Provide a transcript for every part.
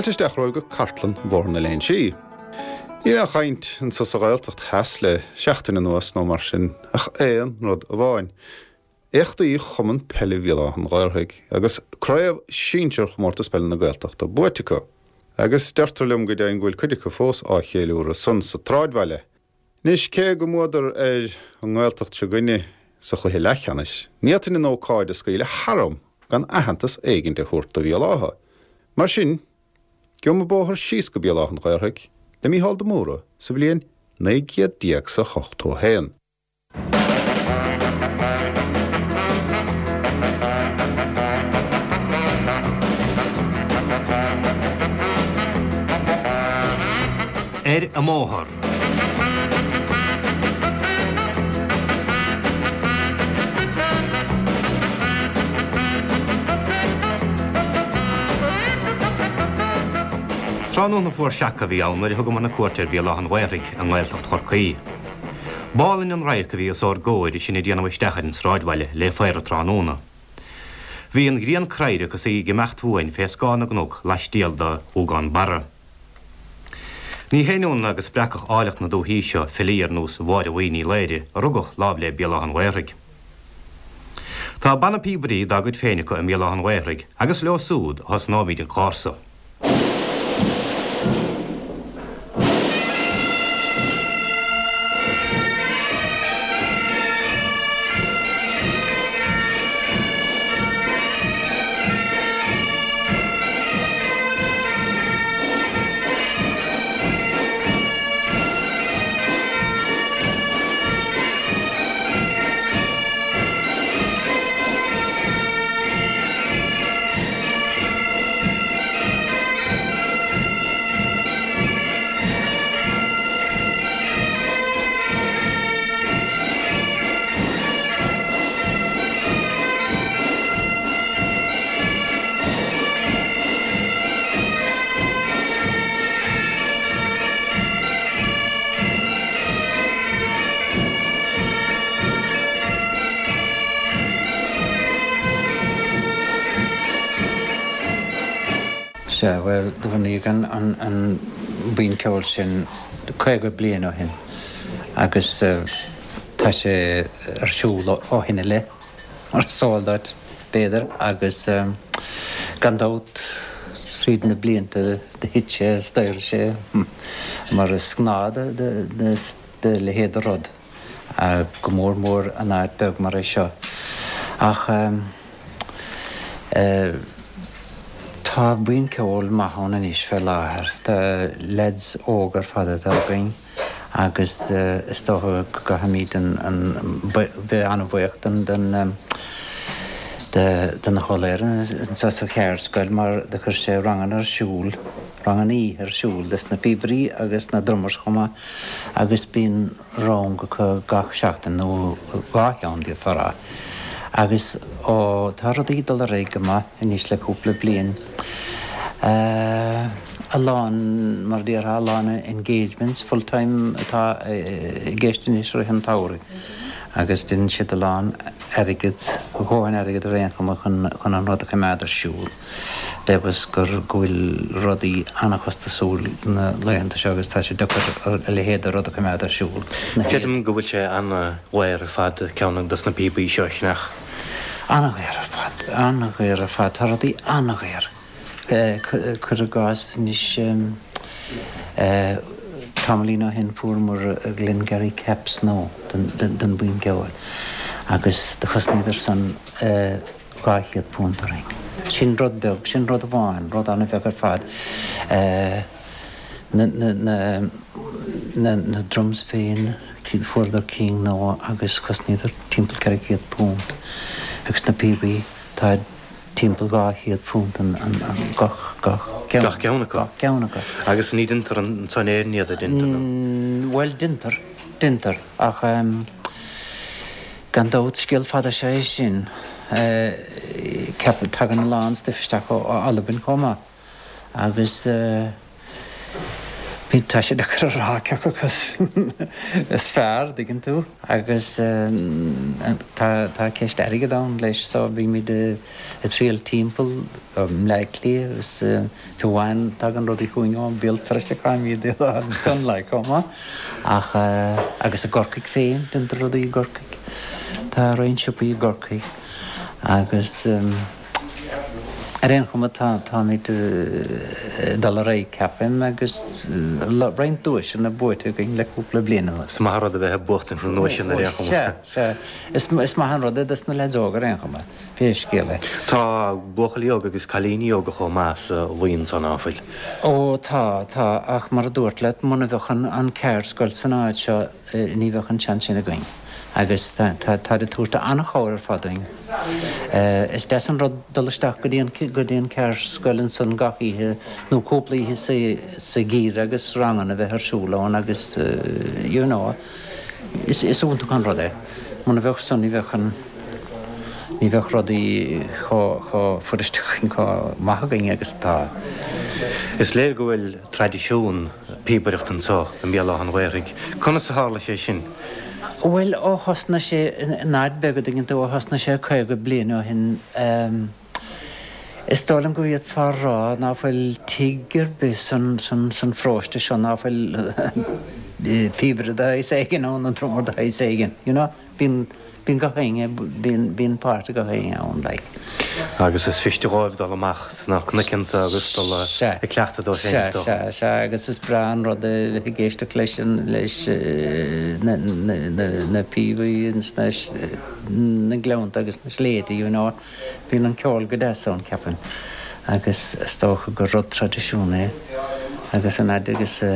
Fáilte isteach romhaibh go cartlann Bhóthar na Léinsí. Níl aon chaint anso sa Ghaeltacht Theas le seachtain anuas nó mar sin ach aon rud amháin, éachtaí Chumann Peile Bhéal Átha an Ghaorthaidh agus Craobh Sinsear Chomórtas Peile na Gaeltachta buaite acu. Agus deirtear liom go deimhin go bhfuil cuid acu fós á cheiliúradh san sa tsráidbhaile. Anois, cé go mbuadar ar an nGaeltacht seo 'gainne sa chluiche leathcheannais, ní fhéadfainn an ócáid a scaoileadh tharam gan aitheantas éigint a thabhairt do Bhéal Átha. Mar sin, gheobhaidh muid bóthar síos go Béal Átha an Ghaorthaidh le Mícheál de Mórdha sa bhliain 1981. Ar an mbóthar. Tráthnóna fuar seaca a bhí ann nuair a thugamar na cuairt ar Bhéal Átha an Ghaorthaidh i nGaeltacht Chorcaí. B'álainn an radharc a bhí os ár gcomhair is sinn ag déanamh isteach ar an sráidbhaile le faobhar tráthnóna. Bhí an ghrian craorac is í ag imeacht uainn fé scáth na gcnoc laistiar de Ghuagán Barra. Ní haon ionadh go spreagfadh áilleacht na dúthaí seo filí ar nós Mháire Bhuí Ní Laoire a rugadh láimh le Béal Átha an Ghaorthaidh. Tá banna píobairí dá gcuid féin acu i mBéal Átha an Ghaorthaidh agus leo súd a thosnóimid an clár so. Sea, bhuel, do bunaíodh an buíon ceoil sin 50 bliain ó shin agus tá sé ar siúl ó shin i leith, mar is eol duit, b'fhéidir, agus gan dabht tríd na blianta do thit sé is d'éirigh sé mar is gnáth do leithéid de rud. go mór mór in áit beag mar é seo. Ach tá buíon ceoil maith ann anois fé láthair. Tá leaids óga ar fad atá againn agus is dócha go gcaithfimid bheith an-bhuíoch den den Ó Laoire anseo sa Cheardscoil mar do chuir sé ranganna ar siúl, ranganna oíche ar siúl dos na píobairí agus na drummers chomh maith. agus bíonn rang acu gach seachtain, nó dhá cheann d'fhéadfá a rá. Agus ó tá rudaí ag dul ar aghaidh go maith anois le cúpla bliain, a lán, mar a déarfá, a lán engagements full time atá i gceist anois i rith an tsamhraidh agus déanann siad a lán airgead, a dhóthain airgead ar aon chuma chun an rud a choimeád ar siúl. Deimheas gur go bhfuil rudaí an-chostasúil na laethanta seo agus tá sé deacair a leithéid de rud a choimeád ar siúl. Na Creidim go bhfuil sé an-dhaor ar fad ceann dos na píobaí seo a cheannach. An-dhaor ar fad, an-dhaor ar fad. Tá rudaí an-dhaor. Cuir i gcás anois tamaillín ó shin fuaireamar Glengarry Caps nua don bhuíon ceoil agus do chosnaíodar san £200 orainn. Sin rud beag, sin rud amháin, rud an-bheag ar fad. Na, na, na, na, na drums féin, fuaireadar cinn nua agus chosnaíodar timpeall £400. Agus na píobaí, tá timpeall £200 an, an, an, gach, gach ceann. Gach ceann acu? Gach ceann acu. Agus ní deintear anso in Éirinn iad, a deintear nó? Bhuel, deintear, deintear, ach. Gan dabht, scéal fada is ea é sin. Ceapaim, tagann a lán stuif isteach ó Albain chomh maith agus. Bíonn, tá sé deacair a rá cé acu is fearr, dtuigeann tú, agus tá, tá ceist airgid ann leis so bímid ag triall timpeall i mBleá Cliath agus fiú amháin tagann rudaí chugainn ó Bhéal Feirste caithfimid iad a fháil ansan like chomh maith ach agus i gCorcaigh féin, déantar rudaí i gCorcaigh, tá roinnt siopaí i gCorcaigh agus. Ar aon chuma, táimid ag dul ar aghaidh, ceapaim, agus roinnt duaiseanna buaite againn le cúpla bliain anuas. Is maith an rud a bheith ag buachtaint na nduaiseanna ar aon chuma. Sea, sea. Is maith an rud é dos na leaids óga ar aon chuma, pé scéal é. Tá buachaillí óga agus cailíní óga chomh maith sa bhuíon san, ná fuil? Ó, tá, tá, ach mar a dúrt leat, muna bheadh an ceardscoil san áit seo, ní bheadh an seans sin againn agus táid ag tabhairt an-chabhair ar fad dúinn. Is deas an rud dul isteach go dtí an, go dtí an ceardscoil ansan gach oíche nó cúpla oíche sa, sa gheimhreadh agus ranganna a bheith ar siúl ann agus you know is, is iontach an rud é. Muna bheadh san ní bheadh an, ní bheadh rudaí chomh, chomh fuirist againn, chomh maith againn agus atá. Is léir go bhfuil traidisiún píobaireachta anseo i mBéal Átha an Ghaorthaidh. Conas a tharla sé sin? Bhuel, ó thosnaigh sé in áit beag, an dtuigeann tú, ó thosnaigh sé 50 bliain ó shin, is dóigh liom go bhféadfá a rá ná fuil tigh ar bith san, san, san pharóiste seo ná fuil píobaire de shaghas éigin ann, nó drummer de shaghas éigin, you know. Bíonn, bíonn gach éinne, bíonn, bíonn páirt ag gach éinne ann, like. Agus is fuiriste dhóibh dul amach sna cnoic anso agus dul ag cleachtadh dóibh féin is dócha. Sea, sea, sea, agus is breá an rud é bheith ag éisteacht leis an, leis na, na, na, na píobaí ins na, na gleannta agus na sléibhte, you know. Bíonn an ceol go deas ann, ceapaim, agus is dócha gur rud traidisiún é agus an fhaid agus a,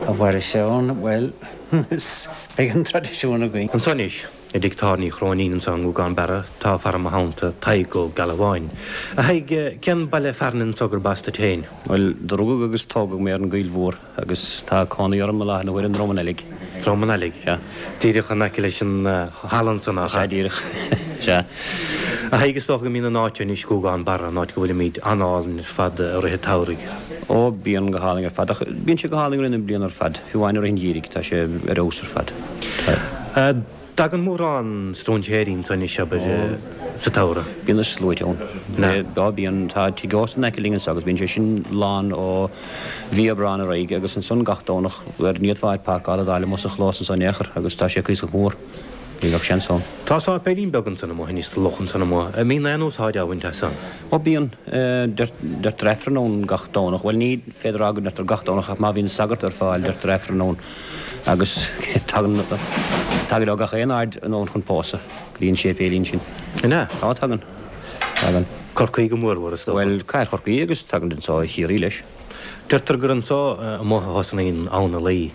a mhairfidh sé ann, bhuel, is. Beidh an traidisiún againn. Anso anois, i dtigh tábhairne Uí Chróinín anso i nGúgán Barra, tá fear i mo theannta, Tadhg Ó Gealbháin. A Thaidhg, cén baile fearainn anso gurb as duit féin? Bhuel, do rugadh agus tógadh mé ar an gCoill Mhór agus tá cónaí orm i láthair na huaire i nDrom an Ailigh. Drom an Ailigh? Sea. Díreach in aice leis an halla ansan, nach ea? Sea, díreach. Sea. A Thaidhg, is dócha go mbíonn an áit anois, Gúgán Barra, an áit go bhfuilimid, an-álainn ar fad i rith an tsamhraidh. Ó, bíonn go hálainn ar fad, ach bíonn sé go hálainn i rith na bliana ar fad, fiú amháin i rith an gheimhridh, tá sé ar fheabhas ar fad. Tá. Dtagann mórán stróinséirí anso anois, abair, sa tsamhradh? Bíonn na sluaite ann. Á, bíonn. Tá tigh ósta in aice linn anso agus bíonn sé sin lán ó mhí Aibreáin ar aghaidh agus ansan gach Domhnach, bhuel, ní fhéadfá áit páirceála a d'fháil amuigh sa chlós anso in aon chor agus tá sé cuíosach mór. Ní bheadh seans ann. Tá sáipéilín beag ansan amuigh anois sa loch ansan amuigh. An mbíonn aon úsáid á bhaint as san? Ó bíonn. Deirtear Aifreann ann gach Domhnach. Bhuel ní féidir a rá go ndeirtear gach Domhnach ach má bhíonn sagart ar fáil deirtear Aifreann ann agus tagann, tagaid ó gach aon aird anonn chun pósadh go dtí an séipéilín sin. An ea? Tá, tagann. Tagann. Corcaigh go mórmhór is dócha. Bhuel, cathair Chorcaí agus tagann anso ó Chiarraí leis. Deirtear gur anso amuigh a thosnaíonn Abhainn na Laoi.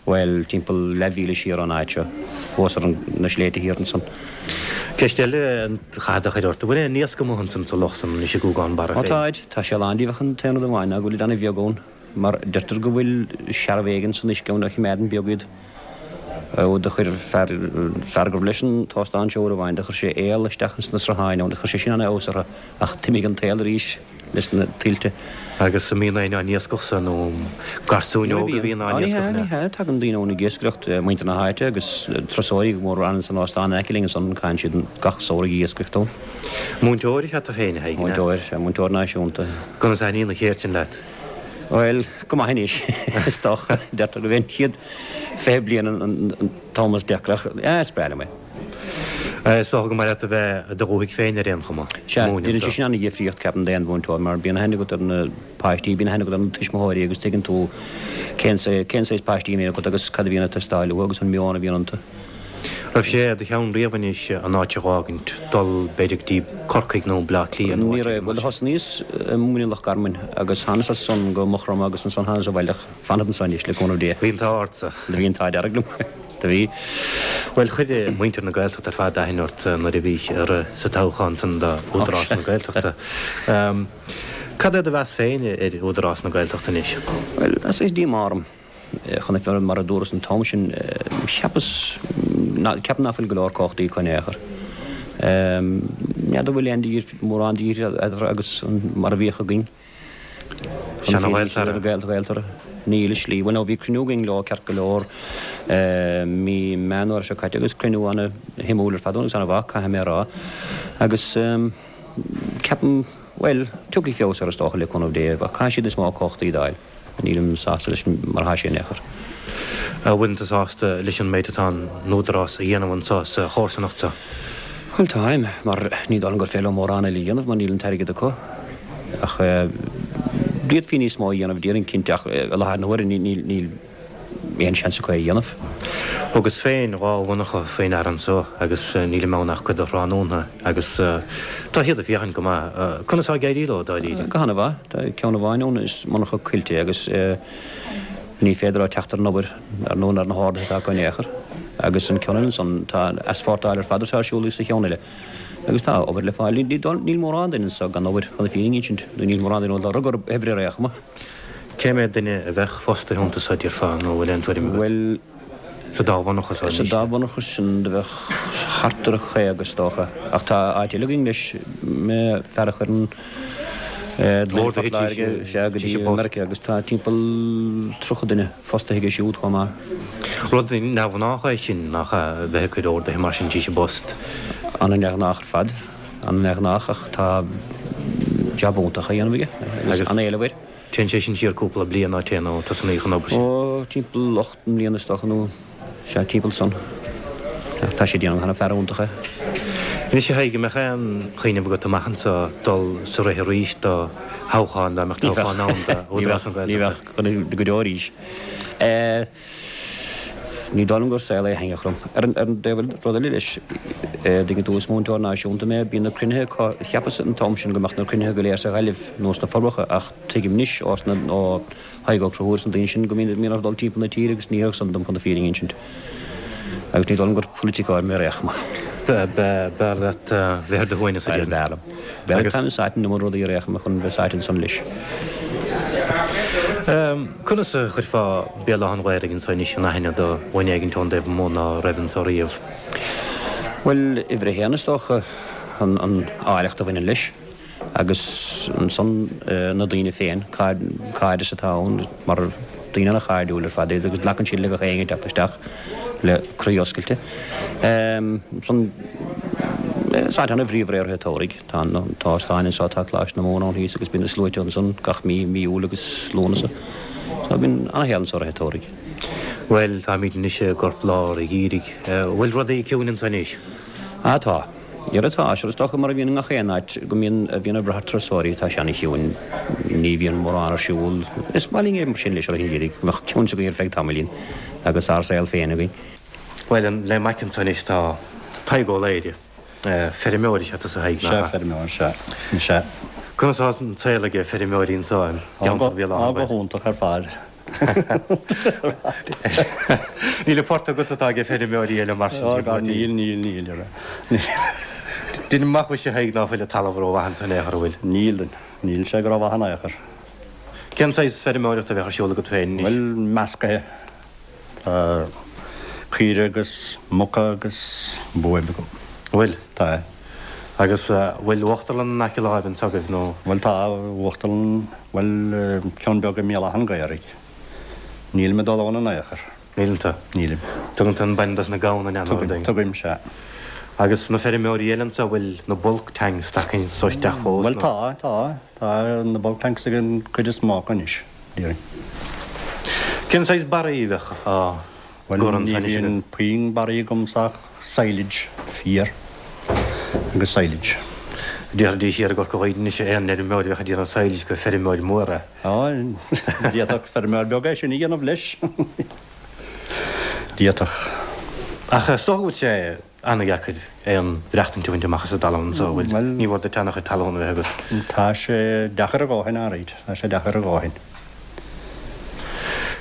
Bhuel, timpeall leathmhíle siar ón áit seo, thuas ar na sléibhte thiar ansan. Ceist eile a chaithfead a chur ort, an bhfuil aon iasc amuigh ansan sa loch san anois i nGúgán Barra féin? Ó táid, tá sé lán díobh ach an t-aon rud amháin ná go bhfuilid ana-bheag ann, mar deirtear go bhfuil searbh éigin san uisce ann a chimeádann beag iad. Ó do chuir fear, fear gurbh leis an t-óstán seo uair amháin, do chuir sé aol isteach ins na srutháin ann, chuir sé sin ana-fheabhas orthu ach d'imigh an t-aol arís. leis na tuilte. Agus an mbíonn éinne á n-iascach san nó garsúin óga a bhíonn á n-iascach? Ní hea, ní hea. Tagann daoine ann ag iascaireacht, muintir na háite agus turasóirí go mór ann san óstán in aice linn ansan, caitheann siad gach samhradh ag iascaireacht ann. Múinteoir is ea tú féin, a Thaidhg, an ea? Múinteoir, sea, múinteoir náisiúnta. Conas a thaitníonn an cheird sin leat? Bhuel, go maith anois, is dócha. Deirtear gurb é an chéad 20 bliain an t-am is deacra ach, is breá liom é. Is dócha gur maith leat a bheith i do dhúthaigh féin ar aon chuma. Sea, déanann sé sin an-dhifríocht, ceapaim, d'aon mhúinteoir, mar bíonn aithne agat ar na páistí, bíonn aithne agat ar na tuismitheoirí agus tuigeann tú cén cén saghas páistí a bhíonn agat agus cad a bhíonn ag teastáil uathu agus an meon a bhíonn iontu. Raibh sé i do cheann riamh anois an áit a dh'fhágaint, dul b'fhéidir go dtí Corcaigh nó Bleá Cliath nó Ní raibh. Bhuel, thosnaíos ag múineadh i Loch Garman agus thánas as san go Maigh Chromtha agus ansan thánas abhaile ach fanfad anso anois, le cúnamh Dé. Bhí an t-ádh ortsa. Bhí an t-ádh dearg liom. Do bhí. Bhuel, chuir muintir na Gaeltachta ar fad aithne ort nuair a bhís ag rith sa toghchán san do Údarás na Gaeltachta. Cad é do mheas féin ar Údarás na Gaeltachta anois? Bhuel, tá saghas díomá orm. Chun na fírinne, mar a dúras an t-am sin, cheapas, ceapaim ná fuil go leor cumhachtaí acu in aon chor. N'fheadar an bhfuil aon mórán de dhifríocht eatarthu agus mar a bhíodh againn. Seana-Ghaeltarra. Gaeltarra. Níl i slí. Bhuel, nó bhí cruinniú againn leo ceart go leor mí Meán Fhómhair seo caite agus cruinniú ana-shuimiúil ar fad agus ana-mhaith, caithfidh mé a rá. Agus ceapaim, bhuel, tiocfaidh feabhas air is dócha le cúnamh Dé, ach caithfidh siad níos mó cumhachtaí d'fháil. Nílim sásta leis mar atá sé in aon chor. An bhfuileann tú sásta leis an méid atá an Údarás a dhéanamh anso sa chomharsanacht seo? Bhuel, táim, mar ní dóigh liom gur féidir leo mórán eile a dhéanamh mar níl an t-airgead acu. Ach d'fhéadfaí níos mó a dhéanamh, déarfainn cinnte, ach i láthair na huaire níl aon seans acu é a dhéanamh. Thugas féin 2 mhonarcha faoi ndeara anso agus nílim ann ach cuid de thráthnóna agus tá siad ag féachaint go maith. Conas tá ag éirí leo, dáiríre? Go han-mhaith. Tá ceann amháin ann, is monarcha coillte é agus ní féidir leo teacht ar an obair, ar ndóigh, ar na horduithe atá acu in aon chor. Agus an ceann eile ansan, tá aisphortáil ar fad atá ar siúl sa cheann eile. Agus tá obair le fáil. Níl mórán duine anso gan obair, chun na fírinne a insint, nó níl mórán duine a bhfuil lorg orthu oibre ar aon chuma. Cé mhéad duine a bheadh fostaithe iontu so, déarfá, nó bhfuil aon tuairim agat? Bhuel. Sa dá mhonarcha so anois. Sa dá mhonarcha sin do bheadh thart ar 50 is dócha. Ach tá áit eile againn leis, fear a chuireann gloine Phort Láirge, sea, go dtí Meiriceá agus tá timpeall 30 duine fostaithe aige siúd chomh maith. Rud neamhghnách é sin, nach ea, a bheith ag cur orduithe mar sin tríd an bpost? An-neamhghnách ar fad, an-neamhghnách ach tá jab iontach á dhéanamh aige agus an-éileamh air. Téann sé sin siar cúpla bliain, ná téann, ó tosnaíodh an obair sin? Ó, timpeall 8 mbliana is dócha, nó sea, timpeall san. Ach tá sé ag déanamh ana fear iontach é. Anois, a Thaidhg, an mbeadh aon chuimhneamh agat amach anso dul sa rith arís do thoghchán, dá mbeadh toghchán ann do Údarás na Gaeltachta? Ní bheadh, go deo arís. Ní dóigh liom gur saol é a thaitneodh liom. Ar an dtaobh eile, rud eile leis, tuigeann tú, is múinteoir náisiúnta mé, bíonn na cruinnithe acu, cheapas an t-am sin go mbeadh na cruinnithe go léir sa Ghaillimh nó sna Forbacha ach tuigim anois ó sna, ó Thadhg Ó Conchúir is na daoine sin go mbíonn, mbíonn orthu dul timpeall na tíre agus ní oirfeadh san dom chun na fírinne a insint. Agus ní dóigh liom gur polaiticeoir mé ar aon chuma. B'fhearr leat bheith ar do shuaimhneas, a déarfainn. B'fhearr liom. B'fhearr táim sáite in iomad rudaí ar aon chuma chun bheith sáite ansan leis. Conas a chuirfeá Béal Átha an Ghaorthaidh anso anois in aithne do dhuine éigint ón dtaobh amuigh ná raibh anso riamh? Bhuel, uimhir a haon is dócha, an áilleacht a bhaineann leis agus ansan na daoine féin, cairdeas atá ann mar daoine ana-chairdiúil ar fad iad agus glacann siad le gach éinne ag teacht isteach le croí oscailte. Ansan is áit ana-bhríomhar é i rith an tsamhraidh. Tá an t-óstán anseo, tá Coláiste na Mumhan ann thíos agus bíonn na sluaite ansan gach mí, mí Iúil agus Lúnasa. So bíonn ana-shaol anseo i rith an tsamhraidh. Bhuel, táimid anois i gcorp lár an gheimhridh. Bhfuil rudaí ciúin anso anois? Ah tá. Dhera tá. Sure is dócha mar a bhíonn i ngach aon áit go mbíonn, a bhíonn ag brath ar turasóirí, tá sé ana-chiúin. Ní bhíonn mórán ar siúl. Is maith linn é mar sin leis i rith an gheimhridh, go mbeadh ciúnas againn ar feadh tamaillín agus ár saol féin againn. Bhuel, le m'aice anso anois tá Tadhg Ó Laoire. Feirmeoir is ea tusa, a Thaidhg, nach ea? Sea, feirmeoir, sea. Sea. Conas atá an saol ag feirmeoirí anso i gceantar Bhéal Átha an Ghaorthaidh? Go hiontach ar fad. Níl an port agat atá ag feirmeoirí eile mar sin, Ó, níl, níl, níl, ar Níl. Deinim amach mhuise, a Thaidhg, ná fuil an talamh rómhaith anso in aon chor, an bhfuil? Níl, níl sé go rómhaith in aon chor. Cén saghas feirmeoireachta a bheadh ar siúl agat féin anois? Bhuel, meascaithe. Tá caoire agus muca agus buaibh agam. Bhfuil? Tá. Agus bhfuil uachtarlann in aice láimhe anso agaibh nó? Bhuel tá uachtarlann, bhuel ceann beag i mBéal Átha an Ghaorthaidh. Nílim ag dul ann in aon chor. Níleann tú? Nílim. Tugann tú an bainne dos na gamhna in aon Tugaim, tugaim, sea. Agus na feirmeoirí eile anso, bhfuil na bulk tanks tagtha anso isteach fós nó? Bhuel tá, tá. Tá na bulk tanks ag an gcuid is mó acu anois. déarfainn. Cén saghas barraí a bheadh á Bhuel, gcur ní ansan anois bhíonn agat? puinn barraí agamsa ach silage, féar agus silage. Déarfaidís thiar i gCorca Dhuibhne anois aon fheirmeoir a bheadh ag déanamh silage gur feirmeoir mór é. Á, d'fhéadfadh feirmeoir beag é sin a dhéanamh leis. D'fhéadfadh. Ach is dócha go bhfuil sé ana-dheacair aon mhaireachtaint a bhaint amach as an dtalamh anso, an bhfuil? Bhuel. Ní mhór duit ana-chuid talún a bheith agat. Tá sé deacair a dhóthain, alright. Tá sé deacair a dhóthain.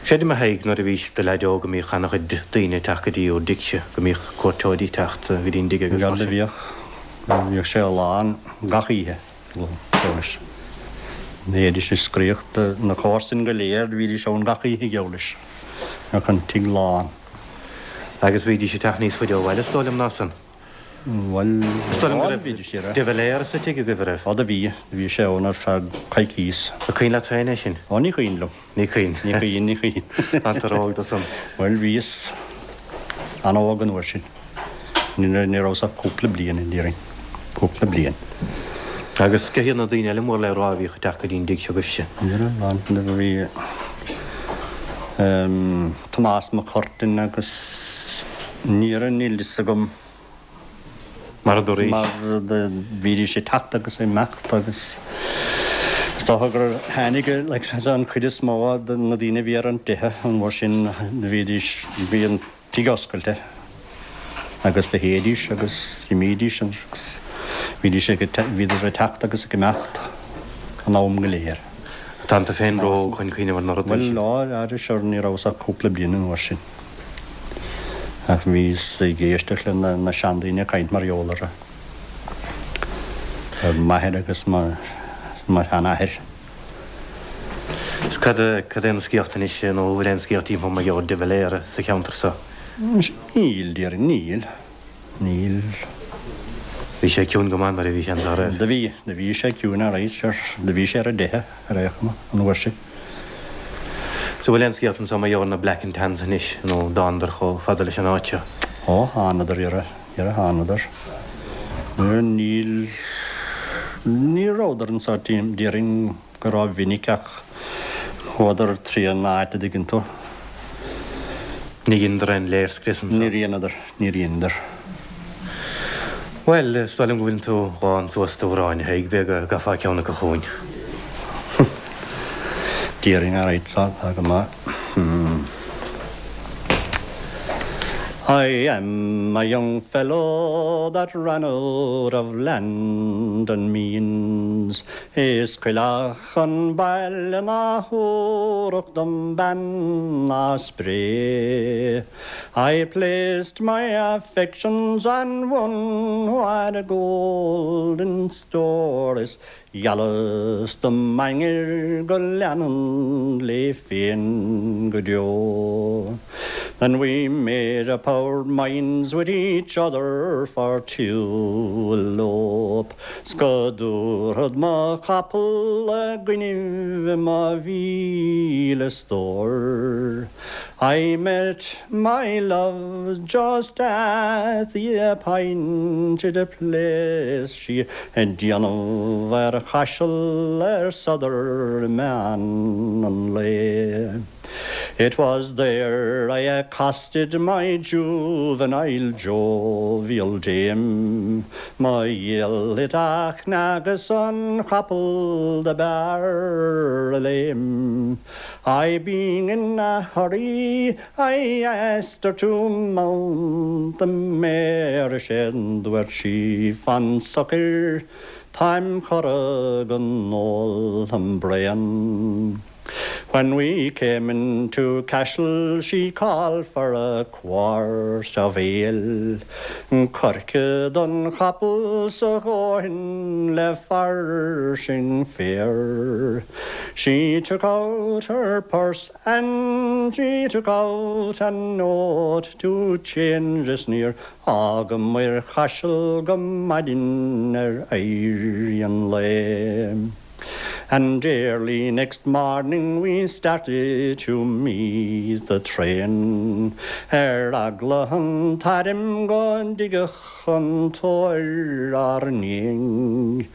Creidim, a Thaidhg, nuair a bhís i do leaid óg go mbíodh ana-chuid daoine ag teacht go dtí bhur dtigse, go mbíodh cuairteoirí ag teacht go dtí an dtig agus mar Bhuel, sin. bhíodh. Bhíodh sé lán gach oíche, geall leis. Bhídís ag scréach, na comharsain go léir, bhídís ann gach oíche, geall leis. Bheadh an tigh lán. Agus bhídís ag teacht níos faide ó bhaile, is dóigh liom, ná san. Bhuel, Is dóigh liom go raibh De Valera sa tigh agaibh, an raibh? Ó do bhí, do bhí sé ann ar feadh coicíos. An cuimhin leat féin é sin? Ó ní cuimhin liom. Ní cuimhin. Ní cuimhin, ní cuimhin. Tá tú ró-óg do san. Bhuel, bhíos an-óg an uair sin. Ní rabhas ach cúpla bliain, déarfainn. Cúpla bliain. Agus cé hiad na daoine eile mór le rá a bhíodh ag teacht go dtí an dtigh seo agaibhse? Ní raibh ann. Bhí Tomás Mac Curtain agus ní raibh, níl fhios agam. Mar a dúraís. Mar bhídís ag teacht agus ag imeacht agus is dócha gur tháinig like an chuid is mó de na daoine a bhí ar an dteitheadh an uair sin bhídís, bhí an tigh oscailte agus do théidís agus d'imídís agus bhídís ag, bhíodar ag teacht agus ag imeacht an am go léir. Tá tú féin ró-óg chun cuimhneamh ar na rudaí sin. Bhuel, á, sure ní rabhas ach cúpla bliain an uair sin. Ach bhíos ag éisteacht le na seandaoine ag caint mar gheall orthu. Ar m'athair agus mo sheanathair. Is cad cad é na scéalta anois nó an bhfuil aon scéalta timpeall mar gheall ar de Valera sa cheantar so? Níl, déarfainn, níl. Níl. Bhí sé ciúin go maith nuair a bhí sé anso, an raibh? Do bhí, do bhí sé ciúin alright, sure. Do bhí sé ar an dteitheadh ar aon chuma, an uair sin. So bhfuil aon scéalta anso mar gheall ar na Black and Tans anois, nó an dtánadar chomh fada leis an áit seo? Ó, thánadar, dhera, dhera, thánadar. Níl, ní rabhadar anso, déarfainn go ró-mhinic ach chuadar trí an áit a dtuigeann tú. Ní dheineadar aon léirscrios anso? Níor dheineadar, níor dheineadar. Bhuel, is dóigh liom go bhfuileann tú lán suas d'amhráin, a Thaidhg, b'fhéidir go gcaithfeá ceann acu chugainn. Déarfainn, alright, tá go maith. I am a young fellow that ran out of land and means Is coileach an baile ná thabharfadh dom bean ná spré. I placed my affections on one who had gold in store Is Gheallas dom m'ainnir go leanfainn léi féin go deo. Then we made up our minds with each other for to elope 'S go dtabharfad mo chapall i gcoinnibh mo mhíle stór. I met my love just at the appointed place, Sí ag déanamh ar Chaiseal ar sodar meán an lae. It was there I accosted my juvenile jovial dame, Mo dhiail thit a chnag is an capall do b'fhearr a léim. I being in a hurry I asked her to mount the mare is é dúirt sí fan socair táim cortha gon ól im braon. When we came into Cashel she called for a quart of ale, Coirce don chapall 's a dhóthain le fairsing féir. She took out her purse and she took out a note to change is níor fhágamair Chaiseal go maidin ar éirí an lae. And early next morning we started to meet the train Ar eagla an t-airm go dtigeadh an tóir ár ndiaidh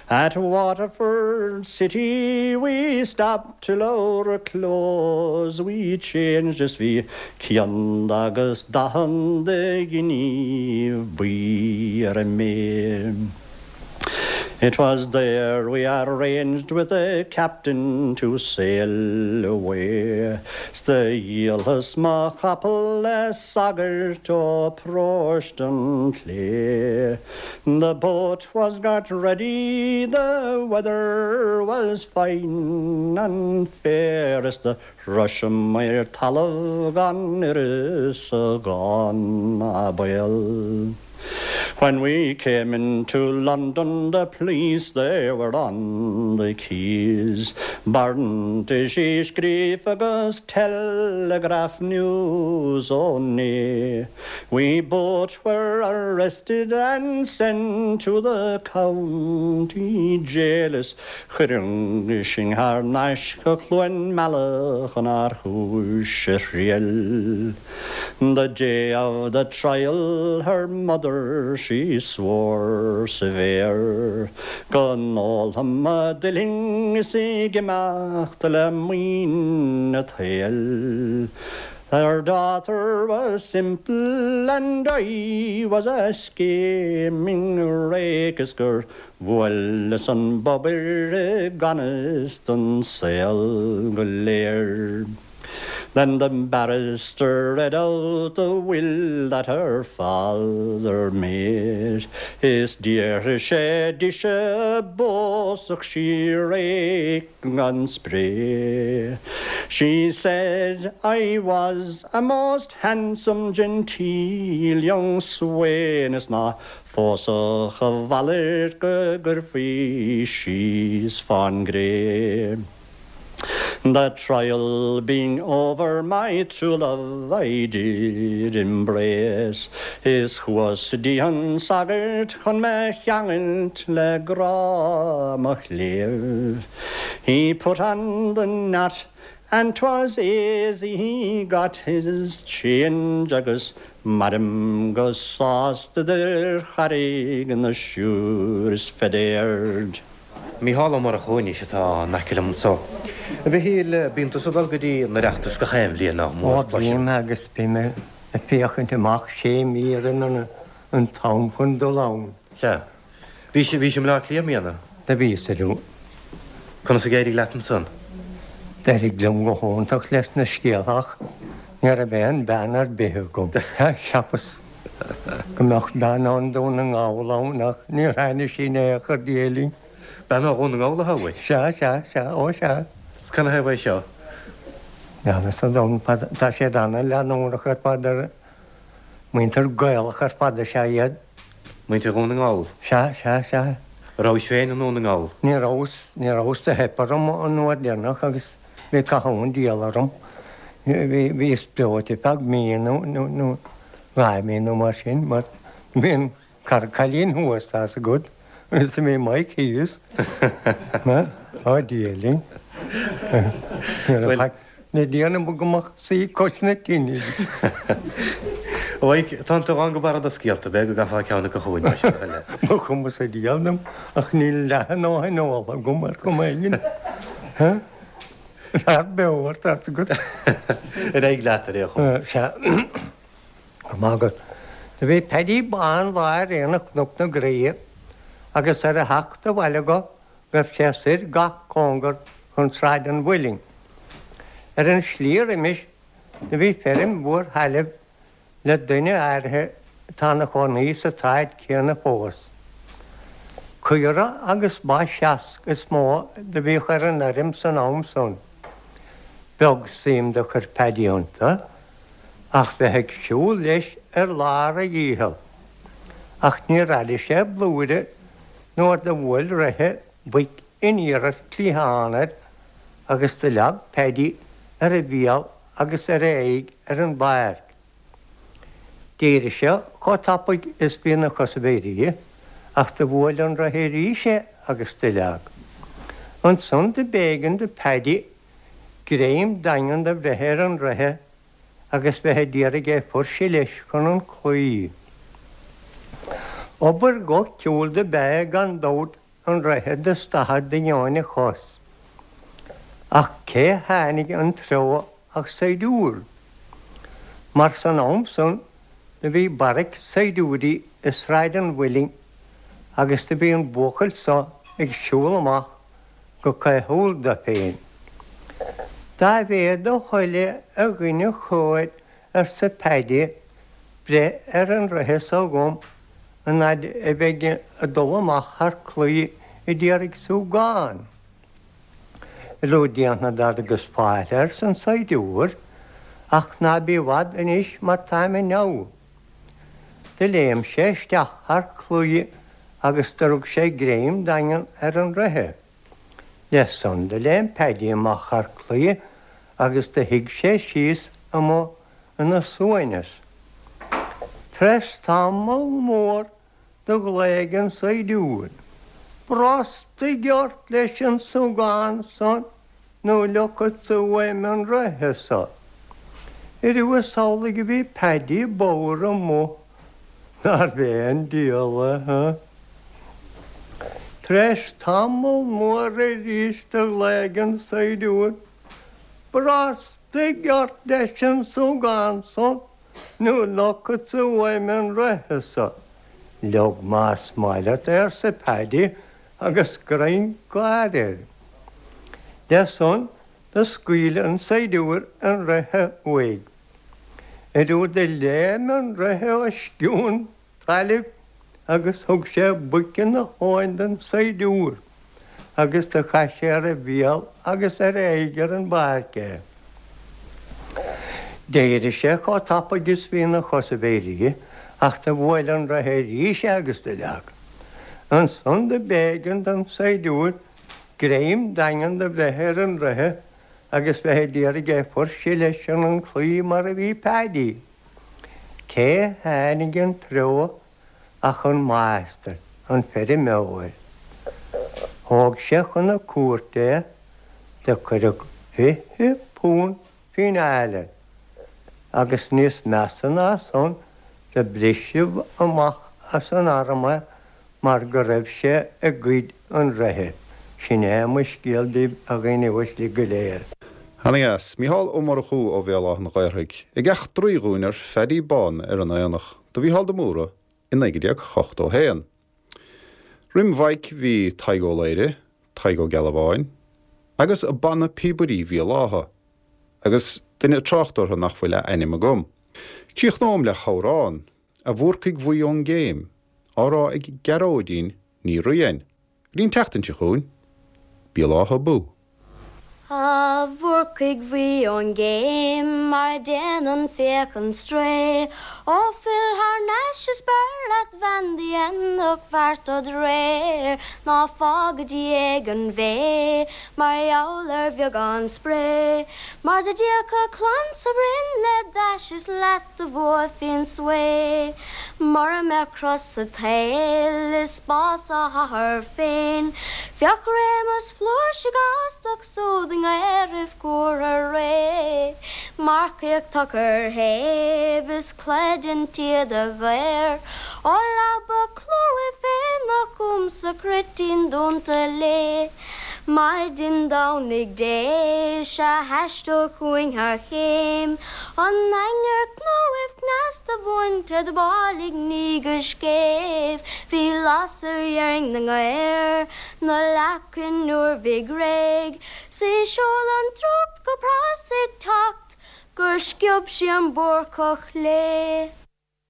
At Waterford City we stopped till our clothes we changed Is bhí céad agus daichead de ghiníbh buí ar an mbé. It was there we arranged with the captain to sail away 'S do dhíolas mo chapall le sagart ó Paróiste an tSlé. The boat was got ready, the weather was fine and fair Is do shroiseamair talamh gan uireasa gan baol. When we came into London the police they were on the quays Barrantaisí scríofa agus telegraph news ó né We both were arrested and sent to the county jail Is cuireadh sinn thar n-ais go Cluain Meala chun ár chúis a thriail. The day of the trial her mother she swore severe Go n-ólfadh mo duillinn is ag imeacht le maoin an tsaoil Her daughter was simple and I was a scheming rake Is gur bhuaileas an bobhair i gan fhios don saol go léir. Then the barrister read out the will that her father made Is d'fhiafraigh sé dise an bpósfadh sí rake gan spré She said I was a most handsome genteel young swain Is ná phósfadh a mhalairt go gcuirfí síos fán gcré. The trial being over my true love I did embrace Is chuas dtí an sagart chun me cheangailt le grá mo chléibh He put on the knot and 'twas aisy he got his change Agus mairim go sásta idir Charraig na Siúr is Fedéard. Mícheál Ó Murchú anois atá in aice liom anso. A Mhichíl, bíonn tusa ag dul go dtí an Oireachtas gach aon bhliain nach mór, Ó bím agus bím ag féachaint amach sé mí roimh an t-am chun dul ann. Sea. Bhís, bhís i mBleá Cliath i mbliana? Do bhíos arú. Conas a d'éirigh leat ansan? D'éirigh liom go hiontach leis na scéalta ach ní raibh aon bhean ar bith agam. Cheapas. Go mbeadh bean ó Dhún na nGall ann ach níor tháinig sí in aon chor Dia linn. Bean ó Dhún na nGall atá uait? Sea, sea, sea, ó sea. Is canathaobh é seo? Níl fhios agam, tá siad ana-leanúnach ar fad ar muintir Gaelach ar fad is ea iad. Muintir Dhún na nGall? Sea, sea, sea. Rabhais féin i nDún na nGall? Ní rabhas, ní rabhas, do theip orm an uair deireanach agus Bhí caitheamh an diabhail orm. Bhíos breoite feadh mí nó 2 mí nó mar sin mar bhí an cara cailín thuas, tá's agat, agus bhí Mike thíos. Á Dia linn. Ní raibh le déanamh go mbeadh suí cois na tine. A Mhaidhc, tánn tú lán go barra de scéalta, b'fhéidir go gcaithfeá ceann acu chugainn mar sin a thuilleadh. Mo chuma sa diabhal dom ach níl leath a ndóthain óltha agam ar chuma éigin. Fear beo ort, tá's agat. Ar aghaidh leat, ar aon chuma. Sea. Go maith agat. Do bhí Paddy Bán lá ar aonach Chnoc na Graí agus ar a theacht abhaile dho ghaibh sé soir gach cóngar chun Sráid an Mhuilinn. Ar an slí roimis do bhí feirm mhór thailimh le duine áirithe atá 'na chónaí sa tsráid chéanna fós. Caora agus ba seasc is mó do bhíodh ar an fheirm san am san. Beag suim do chuir Paddy iontu ach bheith ag siúl leis ar lár a dhícheall. Ach níor airigh sé blúire nuair do bhuail reithe boic aniar as cliathán air agus do leag Paddy ar a bhéal agus ar a aghaidh ar an bpáirc. D'éirigh sé chomh tapaidh is bhí ina chosaibh éirithe, ach do bhuail an reithe arís é agus do leag. Ansan do b'éigean do Paddy greim daingean do bhreith ar an reithe agus bheith a d'iarraidh é fuirseadh leis chun an chlaí. Obair dhoiciúil do b'ea é gan dabht an reithe do stadadh de dheoin a chos. Ach cé tháinig an treo ach saighdiúir. Mar san am san do bhí barraic saighdiúirí i Sráid an Mhuilinn agus do bhí an buachaill so ag siúl amach go caothúil do féin. Dá mhéad do thoil é a dhuine chóir arsa Paddy breith ar an reithe so dhom an fhaid a bheinn ag dul amach thar claí a d'iarraidh súgán. Rud déanfad agus fáilte arsa an saighdiúir, ach ná bí i bhfad anois mar táim i ndabhadh. Do léim sé isteach thar claí agus do rug sé greim daingean ar an reithe. Le san do léim Paddy amach thar claí agus do shuigh sé síos amuigh ina shuaimhneas. Tar-éis tamall mór do ghlaoigh an saighdiúir, Brostaigh ort leis an sugán san nó leogfadsa uaim an reithe so. Ariamh is amhlaidh a bhí Paddy bodhar amuigh, nárbh é an diabhal é, ha? Tar-éis tamall mór arís do ghlaoigh an saighdiúir, Brostaigh ort leis an sugán san nó leogfadsa uaim an reithe so. Leog más maith leat é, arsa Paddy agus greim gáire air. Le san do scaoil an saighdiúir an reithe uaidh. Ariamh do léim an reithe os cionn tailimh agus thug sé buic ina thóin don saighdiúir agus do chaith sé ar a bhéal agus ar a aghaidh ar an bpáirc é. D'éirigh sé chomh tapaidh is bhí ina chosaibh éirithe ach do bhuail an reithe arís é agus do leag. Ansan do b'éigean don saighdiúir greim daingean do bhreith ar an reithe agus bheith a d'iarraidh é fuirseadh leis chun an chlaí mar a bhí Paddy. Cé tháinig an treo ach an máistir, an feirmeoir. Thóg sé chun na cúirte é, do cuireadh £20 fíneáil air, agus níos measa ná san, do briseadh amach as an arm é mar go raibh sé ag goid an reithe. Sin é mo scéal daoibh a dhaoine uaisle go léir. Ana-dheas. Mícheál Ó Murchú ó Bhéal Átha an Ghaorthaidh ag eachtraí dhúinn ar Phaddy Bán ar an Aonach do Mhícheál de Mórdha i 1981. Roim Mhaidhc bhí Tadhg Ó Laoghaire, Tadhg Ó Gealbháin agus Banna Píobairí Bhéal Átha agus duine ag trácht orthu nach bhfuil a ainm agam. Críochnóm le hamhrán. A Bhúrcaigh Bhuí ón gCéim, á rá ag Gearóidín Ní Riain. Go dtí an tseachtain seo chugainn, Béal Átha abú! A Bhúrcaigh Bhuí ón gCéim, mar a déanann féachann strae, Ó fill thar n-ais is b'fhearr leat bhean do dhéanfadh feart dod réir, Ná fág i ndiaidh an bhé mar gheall ar bheagán spré, Mar dá dtiocfadh clann sa bhroinn le d'ais is leat do bhuafaí an svae. Mura mbeadh cros sa tsaol is bás a hathar féin, bheadh réimeas flúirse gástach súd i ngaorthaibh cuartha réidh. Marcaíocht tacair shéimh is cleite an tsíoda ghéar ó leaba clúimh féin nach fúmsa cruitín dúnta léi. Maidin Domhnaigh Dé 'sea thaisteal chugainn thar chéim an ainnir cnóibh cneasta bhainte do bhailigh ní go scéimh bhí lasair dheirg na ngaor 'na leacain nuair bhig réidh 's í seol an drúcht go pras ag teacht gur sciob sí an Búrcach léi.